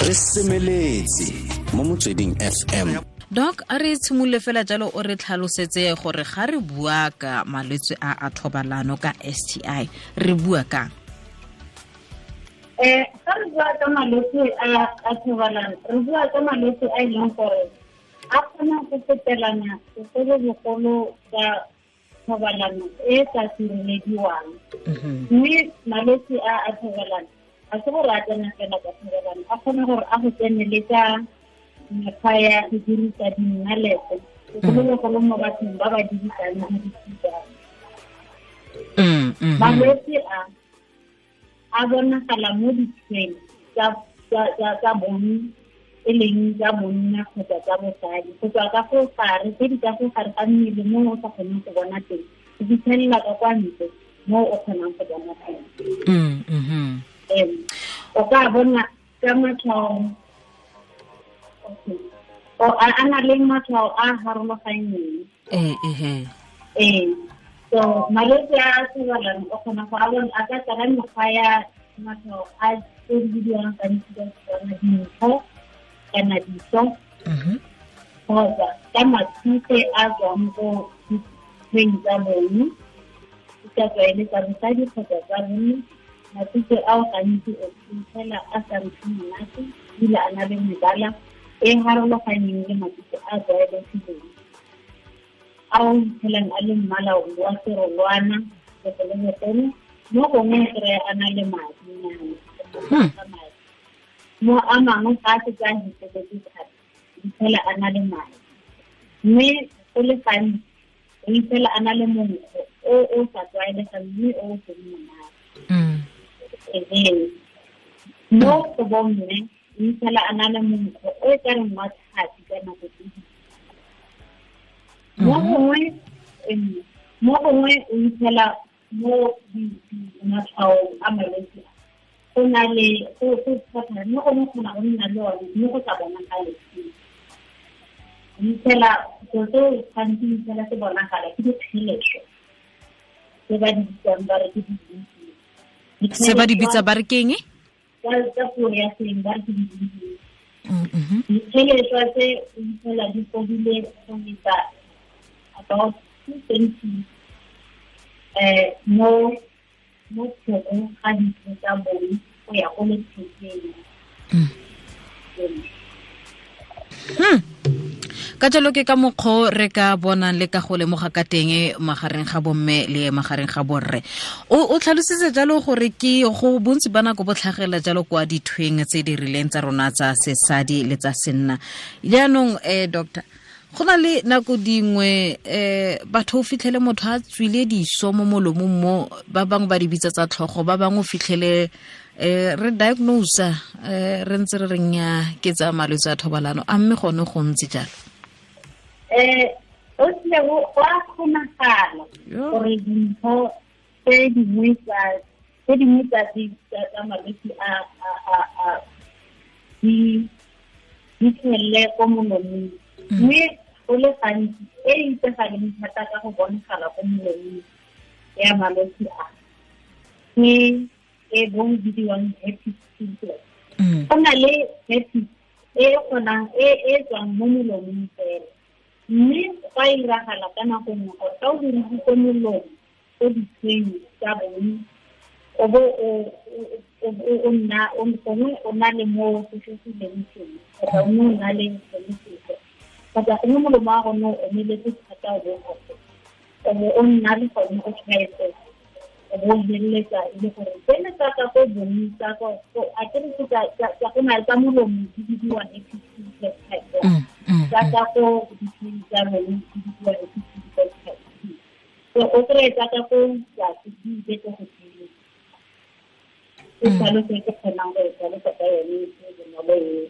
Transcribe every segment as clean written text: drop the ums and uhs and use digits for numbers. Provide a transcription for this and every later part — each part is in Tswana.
Re semeletse mo Motsweding FM. Doc, a re tshimolole fela jalo, o re tlhalosetse gore ga re bua ka malwetse a a thobalano, ka STI, re bua kang? Ga re bua ka malwetse a a thobalano, re bua ka malwetse a e leng gore a kgona go fetelana, segolobogolo ka thobalano e sa sirelediwang. Mme malwetse a a thobalano ga se gore a tsena fela ka thobalano, a kgona gore a go tsene le ka mekgwa ya go dirisa dinnalete, segolobogolo mo bathong ba ba dirisang dirisiwang. Malwetse a a bonagala mo ditshweng tsa bong, e leng tsa bonna kgotsa tsa bosadi, go tswa ka fo gare, tse di ka fo gare ga mmele mo o sa kgoneng go bona teng, go fitlhelela ka kwa ntle mo o kgonang go bona teng. O ka bona ka matshwao o a na le matshwao a harologaneng. Ee, so malwetse a thobalano o kgona go a bona a ka tsala mekgwa ya matshwao a tse di bidiwang gantsi ka Setswana dintho kana diso, kgotsa ka matshutse a tswang ko ditshweng tsa bong, e ka tswa e le tsa bosadi kgotsa tsa bone. Matshutse ao gantsi o fitlhela a sa nkge monate, ebile a na le mebala e harologaneng le matshutse a tlwaelegileng, a o iphitlhelang a le mmala wa serolwana segolobogolo. Mo gongwe kry a na le madinyana mo a mangwe, ga a setse a heteletse thata, iphitlhela a na le madi. Mme go le gantsi o iphitlhela a na le monkgo o o sa tlwaelegang mme o o seng monate. Ehe, mo go bomme o iphitlhela a na le monkgo o e ka reng wa tlhapi ka nako tse dingwe. Mo gongwe o iphitlhela mo matshwaong a malwetse go na le go go mo gongwe kgona go nna le one mme go sa bonagale. O iphitlhela selo seo gantsi o iphitlhela se bonagala ke dikgeleswa tse ba di bitsang ba re ke di Se ba di bitsa ba re keng? Ka puo ya seng ba re ke di dikgeleswa tse o iphitlhela di godile go feta about 2 cm mo thekong ga ditho tsa bong go ya go lethekeng. Ka jalo ke ka mokgwa re ka bonang le ka go lemoga ka teng magareng ga bomme le magareng ga borre. O tlhalositse jalo gore ke go bontsi ba nako bo tlhagelela jalo kwa dithweng tse di rileng tsa rona tsa sesadi le tsa senna. Jaanong, doctor, go na le nako dingwe batho o fitlhele motho a tswile diso mo molomong, mo ba bangwe ba di bitsa tsa tlhogo, ba bangwe o fitlhele re diagnose re ntse re reng ya ke tsa malwetse a thobalano. A mme gone go ntse jalo? O tlile go a kgonagala gore dintho tse dingwe tsa malwetse a di tlhelele ko molomong, mme go le gantsi e itsegaleng thata ka go bonagala ko molomong ya malwetse a ke e bo bidiwang herpes simplex. Go na le herpes e kgonang e tswang mo molomong fela, mme go a iragala ka nako nngwe gore ka o dirisitse molomo ko ditshweng tsa bone, o bo o nna gongwe o na le mo sefegileng teng, kgotsa o o na le sone sefe, kgotsa gongwe molomo wa gone o omeletse thata, o bo o bo o nna le gone o tshwaetsega, o bo o feleletsa e le gore tsene tsa ka ko bong tsa ko a ke re tsa go na tsa molomo di bidiwa herpes simplex type 1, tsa ka ko ditshweng tsa bone di bidiwa herpes simplex type 2. So o kry-e tsa ka ko tlase di ile ko godimo. Ke tlhaloso e ke kgonang go e tlhalosa ka yone e bonolo eo.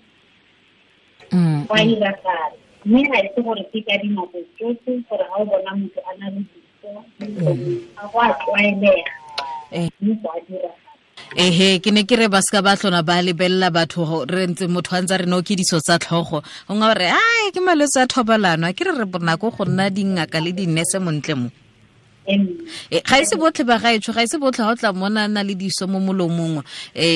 Go a iragala, mme ga e se gore ke ka dinako tsotlhe gore ga o bona motho a na le diso ga go a tlwaelega, mme go a diragala. Ehe, ke ne ke re ba seka ba tlhona ba lebelela batho re ntse motho a ntse re no ke diso tsa tlhogo, o nga re ai ke malwetse a thobalano. A ke re re bonako go nna dingaka le dinese montle mo. Ga ise botlhe ba gaetsho, ga ise botlhe ga o tla mona na le diso mo molomong,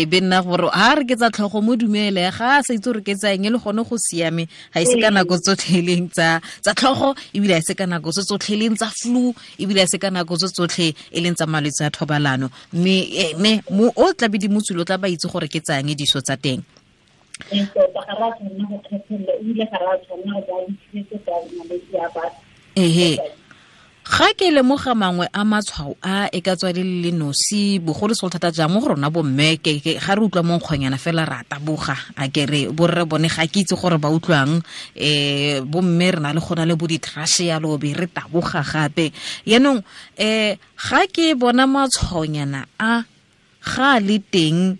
be nna gore ha re ke tsa tlhogo mo dumele, ga a sa itse gore ke tsa eng, le gone go siame. Ga ise ka nako tsotlhe e leng tsa tlhogo, ebile ga ise ka nako tse tsotlhe e leng tsa flu, ebile ga ise ka nako tse tsotlhe e leng tsa malwetse a thobalano. Mme mo o tla be di motswile, o tla ba itse gore ke tsa eng diso tsa teng. Ehe, ga ke lemoga mangwe a matshwao a e ka tswa le le nosi, bogolo segolo thata jang mo go rona bomme, ke ga re utlwa mo nkgonyana fela ra taboga, a ke re borre bone ga ke itse gore ba utlwang, bomme re na le gona le bo di-trash yalo be re taboga gape. Yaanong ga ke bona matshwaonyana a ga le teng,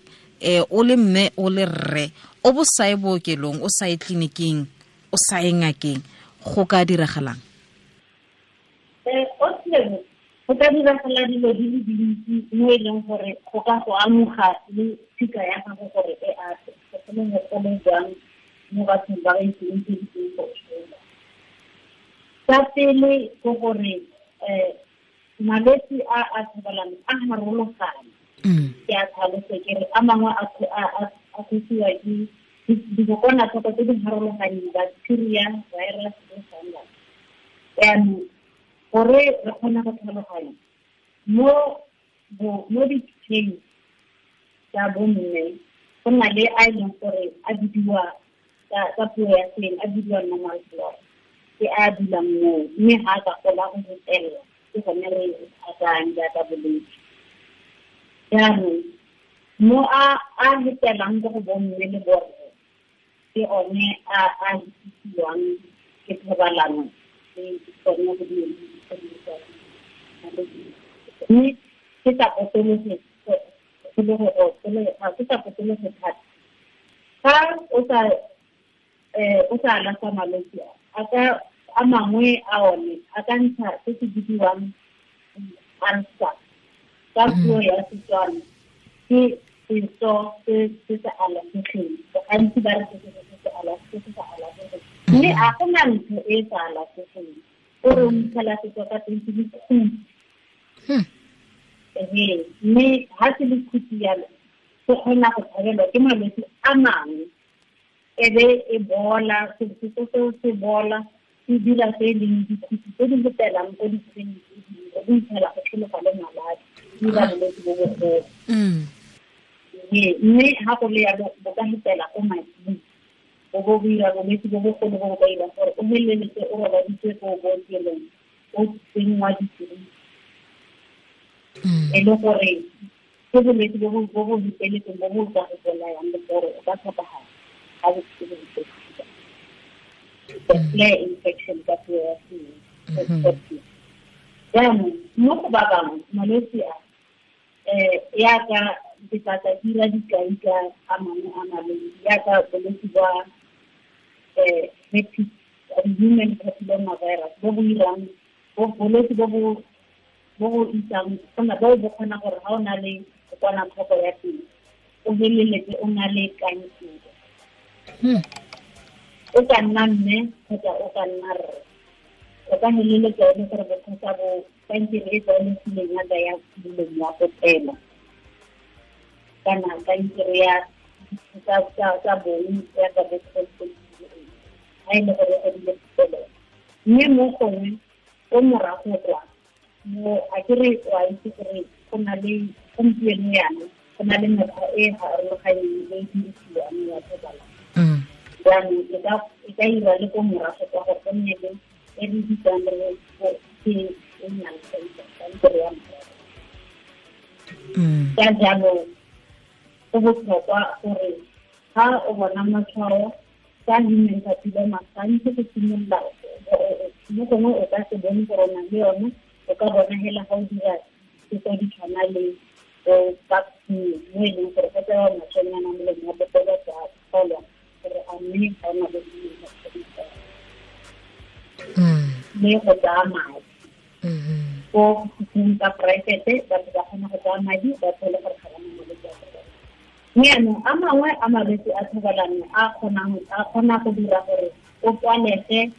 o le mme o le rre, o bo sa ye bookelong, o sa ye tleliniking, o sa ye ngakeng, go ka diragalang? Go ka diragala dilo di le dintsi mo e leng gore go ka go amoga le tshika ya gago gore e ate, segolobogolo jang mo bathong ba ba itseng tse di teng go tshola. Sa pele ke gore malwetse a a thobalano a harologane. Ke a tlhalose ke re a mangwe a kgosiwa ke dikokwanatlhoko tse di harologaneng, bacteria, virus le fungus. Jaanong gore re kgone go tlhaloganya mo ditsheng tsa bomme, go na le a e leng gore a bidiwa ka puo ya seng, a bidiwa normal flora, ke a dulang moo, mme ga a ka gola go fetelela, ke gone re a tsayang jaaka bolwetse. Jaanong mo a fetelang ko go bomme le borre, ke one a fetisiwang ke thobalano le tsone go di mme ke sa potologe thata. Fa o sa alafa malwetse a mangwe a one a ka ntsha se se bidiwang ulcer ka puo ya Setswana, ke seso se se sa alafegeng. Gantsi ba re se se sa alafegeng, mme a go na ntho e sa alafegeng, o re o ntshala setso ka teng se le khuti. Mme ha se le khuti yalo, se kgona go tshabelwa ke malwetse a mangwe, e be e bola, setso seo se bola, se dira se e leng dikhuti tse di fetelang ko ditsheng tse dingwe, go itsela go tlhologa le maladi, di dira bolwetse bo bogolo. Mme ha go le yalo, bo ka fetela ko mading, bo bo dira bolwetse bo bogolo bo bo ka irang gore o feleletse o robaditswe ko bookelong, o tsenngwa ditiriso. E le gore ke bolwetse bo bo feteletseng bo bo ka go bolayang le gore o ka tlhokagala ga bo se bo feteletse. The flare infection ka puo ya Setswana. Jaanong mo go ba bangwe malwetse a yaka ke tla dira dikai ka a mangwe a malwetse, yaka bolwetse jwa herpes, human papilloma virus, bo bo irang bolwetse bo bo isang gona bo bo kgona gore ga o na le kokwanatlhoko ya teng, o feleletse o na le kankere. O ka nna mme kgotsa o ka nna rre, o ka feleletsa e le gore bothata bo kankere e tlwaelegileng yaka ya molomo wa popelo, kana kankere ya tsa bong yaka bo ga e le gore o dile popelo. Mme mo gongwe o morago kwa mo a ke re o a itse gore go na le gompieno yana go na le mekgwa e harologaneng e dirisiwang ya thobalano. Jaanong e ka ira le ko morago kwa gore go nne le e re bitsang re ke e nnang kankere ya morago. Ka jalo go botlhokwa gore ga o bona matshwao ka human papilloma, gantsi go simolola mo gongwe o ka se bone gore o na le yone, o ka bona hela ga o dira tse di tshwana le bo pap smear, mo e leng gore go tsewa matshwanyana molomo wa popelo go a tlholwa gore a mme ga o na le human papilloma. Mme go tsaya madi ko sekhung tsa poraefete, batho ba kgona go tsaya madi ba tlhole gore ga ba na malwetse a thobalano. Mme jaanong a mangwe a malwetse a thobalano a kgona go dira gore o tswalege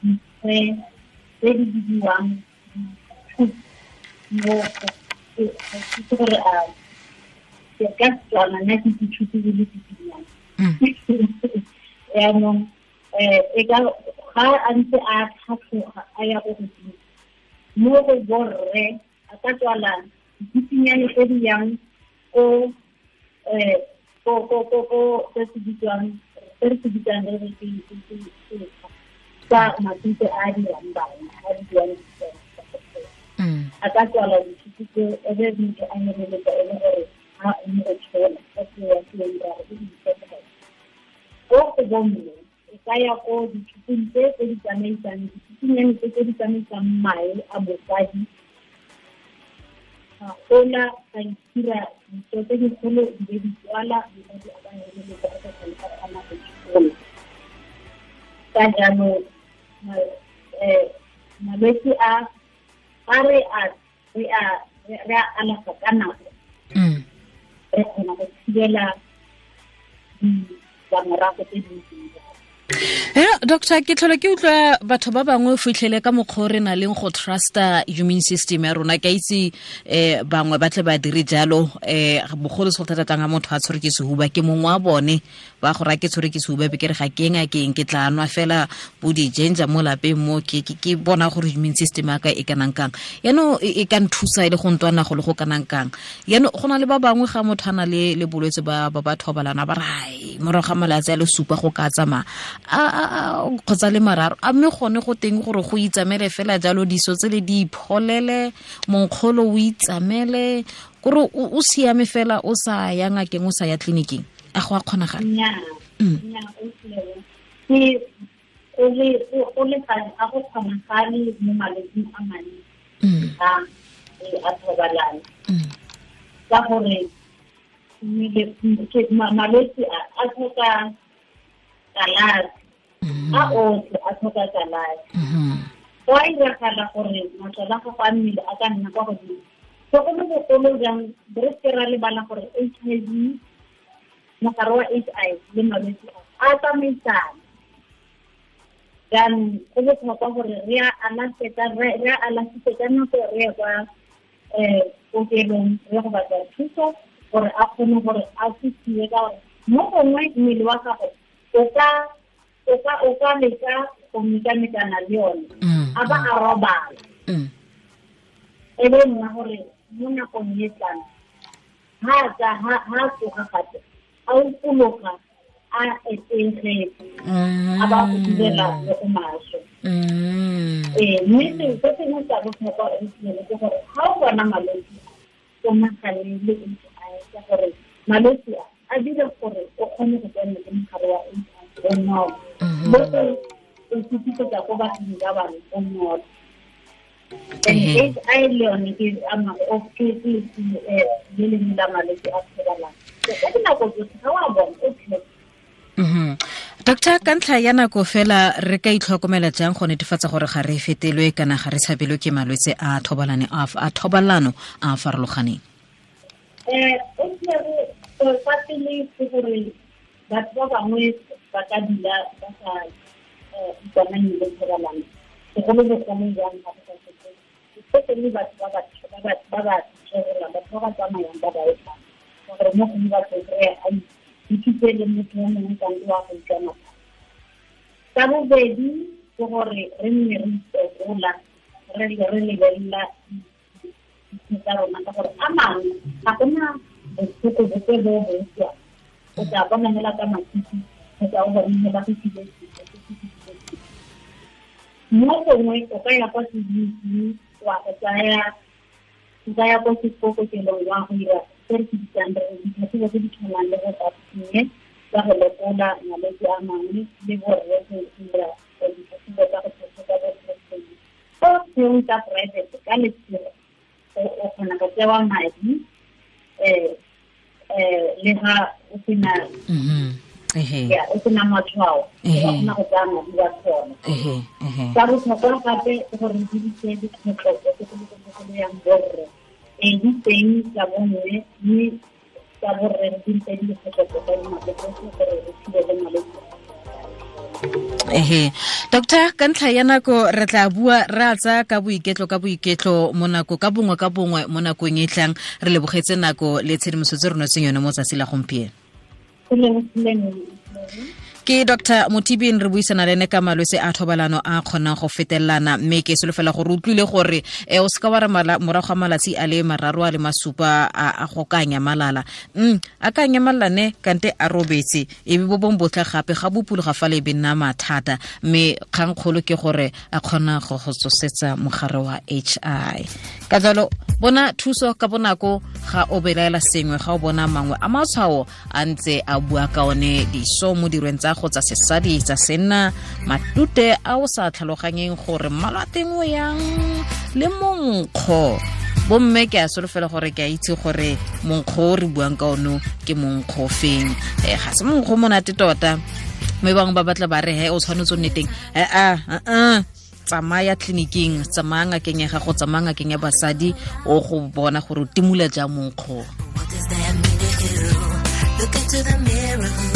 dikgwe tse di bidiwang Mo ke gore a ke ka tswana nna ke dithuto di le ditsinyana. Yaanong e ka ga a ntse a tlhatlhoga a ya go godimo mo go borre a ka tswala ditsinyane tse di yang ko ko se se bitswang se re se bitsang re re ke tsa matute a dirang bana a bidiwang a ka tswala dithuto tse e be motho a feleletsa e le gore ga o mo go tshola ka puo ya seeng ra re ke di-satellite. Ko go bomme e ka ya ko dithutong tse tse di tsamaisang dithutunyane tse tse di tsamaisang mae a bosadi ga gola ga itira ditso tse dikgolo di be di tswala mosadi a ka feleletsa a sa tlhole a kgona go tshola. Ka jaanong malwetse a re a alafa ka nako re kgona go thibela ditlamorago tse dintsi. Doctor, ke tlhola ke utlwa batho ba bangwe fitlhele ka mokgwa re na leng go trusta immune system ya rona. Ke a itse bangwe ba tle ba dire jalo, bogolo se go thata tlang ga motho a tshwere ke sehuba, ke mongwe wa bone ba go raya ke tshwere ke sehuba be ke re ga ke ngakeng ke tla nwa fela bo di-ginger mo lapeng mo ke bona gore immune system ya ka e kanang kang, yaanong e ka nthusa e le go ntwana go le go kanang kang. Yaanong go na le ba bangwe ga motho a na le bolwetse ba ba thobalana ba re ai morago ga malatsi a le supa go ka tsamaya kgotsa le mararo, a mme gone go teng gore go itsamele fela jalo diso tse le di ipholele monkgolo o itsamele kore o siame fela o sa ya ngakeng o sa ya tleliniking, a go a kgonagala? Ke o le a go kgonagale mo malwetsing a mantsi a thobalano ka gore malwetse a tlhoka kalafi, a otlhe a tlhoka kalafi. Go a iragala gore masole a gago a mmele a ka nna kwa godimo, segolobogolo jang re seke ra lebala gore HIV, mogare wa HIV le malwetse a tsamaisana. Jaanong go botlhokwa gore re a alafise ka nako re ye kwa kokelong re go batla thuso gore a kgone gore a thusiwe, ka gore mo gongwe mmele wa gago o ka leka go mekamekana le yone a ba a robala, e be nna gore mo nakong e tlang ha tsoga gape a upologa a etegetse a ba go direla le go maswe. Mme se sengwe sa botlhokwa ke gore ga o bona malwetse o nagane le HIV, ka gore malwetse a dira gore o kgone go tsena le mogare wa HIV bonolo, le go o fetisetsa ko bathong ba bangwe bonolo. HIV le yone ke le lengwe la malwetse a thobalano. Ka dinako tsotlhe ga o a bona o tlhe. Doctor, ka ntlha ya nako fela re ka itlhokomela jang go netefatsa gore ga re fetelwe kana ga re tshabelwe ke malwetse a thobalano a a farologaneng? Fa pele ke gore batho ba bangwe ba ka dula ba sa ikamanye le thobalano, segolobogolo jang ga go sa setse, especially batho ba ba tshwerelang, batho ba ba tsamayang ba ba etang, ka gore mo gongwe batho kry-a a ithute le motho yo mongwe kante wa go utlwana. Sa bobedi ke gore re nne re itekola, re lebelela ditho tsa rona, ka gore a mangwe ga gona botlhoko bope bo bo utlwang, o tla bona fela ka matshitshi kgotsa o bone fela go tsile. Mo gongwe o ka ya kwa tleliniking wa go tsaya ya ko kokelong wa go dira se re se bitsang re ditlhatlhobo tse di tshwanang le go tsa tsa go lekola malwetse a mangwe le borre go dira ditlhatlhobo tsa go tlhatlhoba bo prostate. Ko tseo tsa private ka letshego o kgona go tsewa madi le ga o sena o sena matshwao, o kgona go tsaya madi wa tsona. Sa botlhokwa gape ke gore re dirise dikgotlhopo segolobogolo yang borre, di teng tsa bomme mme tsa borre re dirise dikgotlhopo ka dinako tsotlhe gore re thibele malwetse. Ehe, doctor, ka ntlha ya nako re tla bua re a tsaya ka boiketlo mo nako ka bongwe mo nakong e tlang. Re lebogetse nako le tshedimosetso re notseng yone mo tsatsi la gompieno. Ke Dr. Motibin, re buisana le ene ka malwetse a thobalano a kgonang go fetelelana, mme ke solofela gore utlwile gore o seka wa re morago ga malatsi a le 3 a le 7 a go ka nyamalala. A ka nyamalala ne kante a robetse, e be bo bong botlha gape ga bopologa fa le be nna mathata, mme kgangkgolo ke gore a kgona go go tsosetsa mogare wa HI. Ka jalo bona thuso ka bonako ga o belaela sengwe, ga o bona mangwe a matshwao a ntse a bua ka one diso mo dirweng tsa go tsa sesadi tsa senna, matute a o sa tlhaloganyeng gore mmala teng o yang le monkgo. Bomme ke a solofela gore ke a itse gore monkgo o re buang ka ono ke monkgo feng. Ga se monkgo monate tota, mme bangwe ba batla ba re he o tshwanetse o nne teng. Tsamaya tleliniking, tsamaya ngakeng ya gago, tsamaya ngakeng ya basadi, o go bona gore o timula jang monkgo. What does that mean to you? Look into the mirror.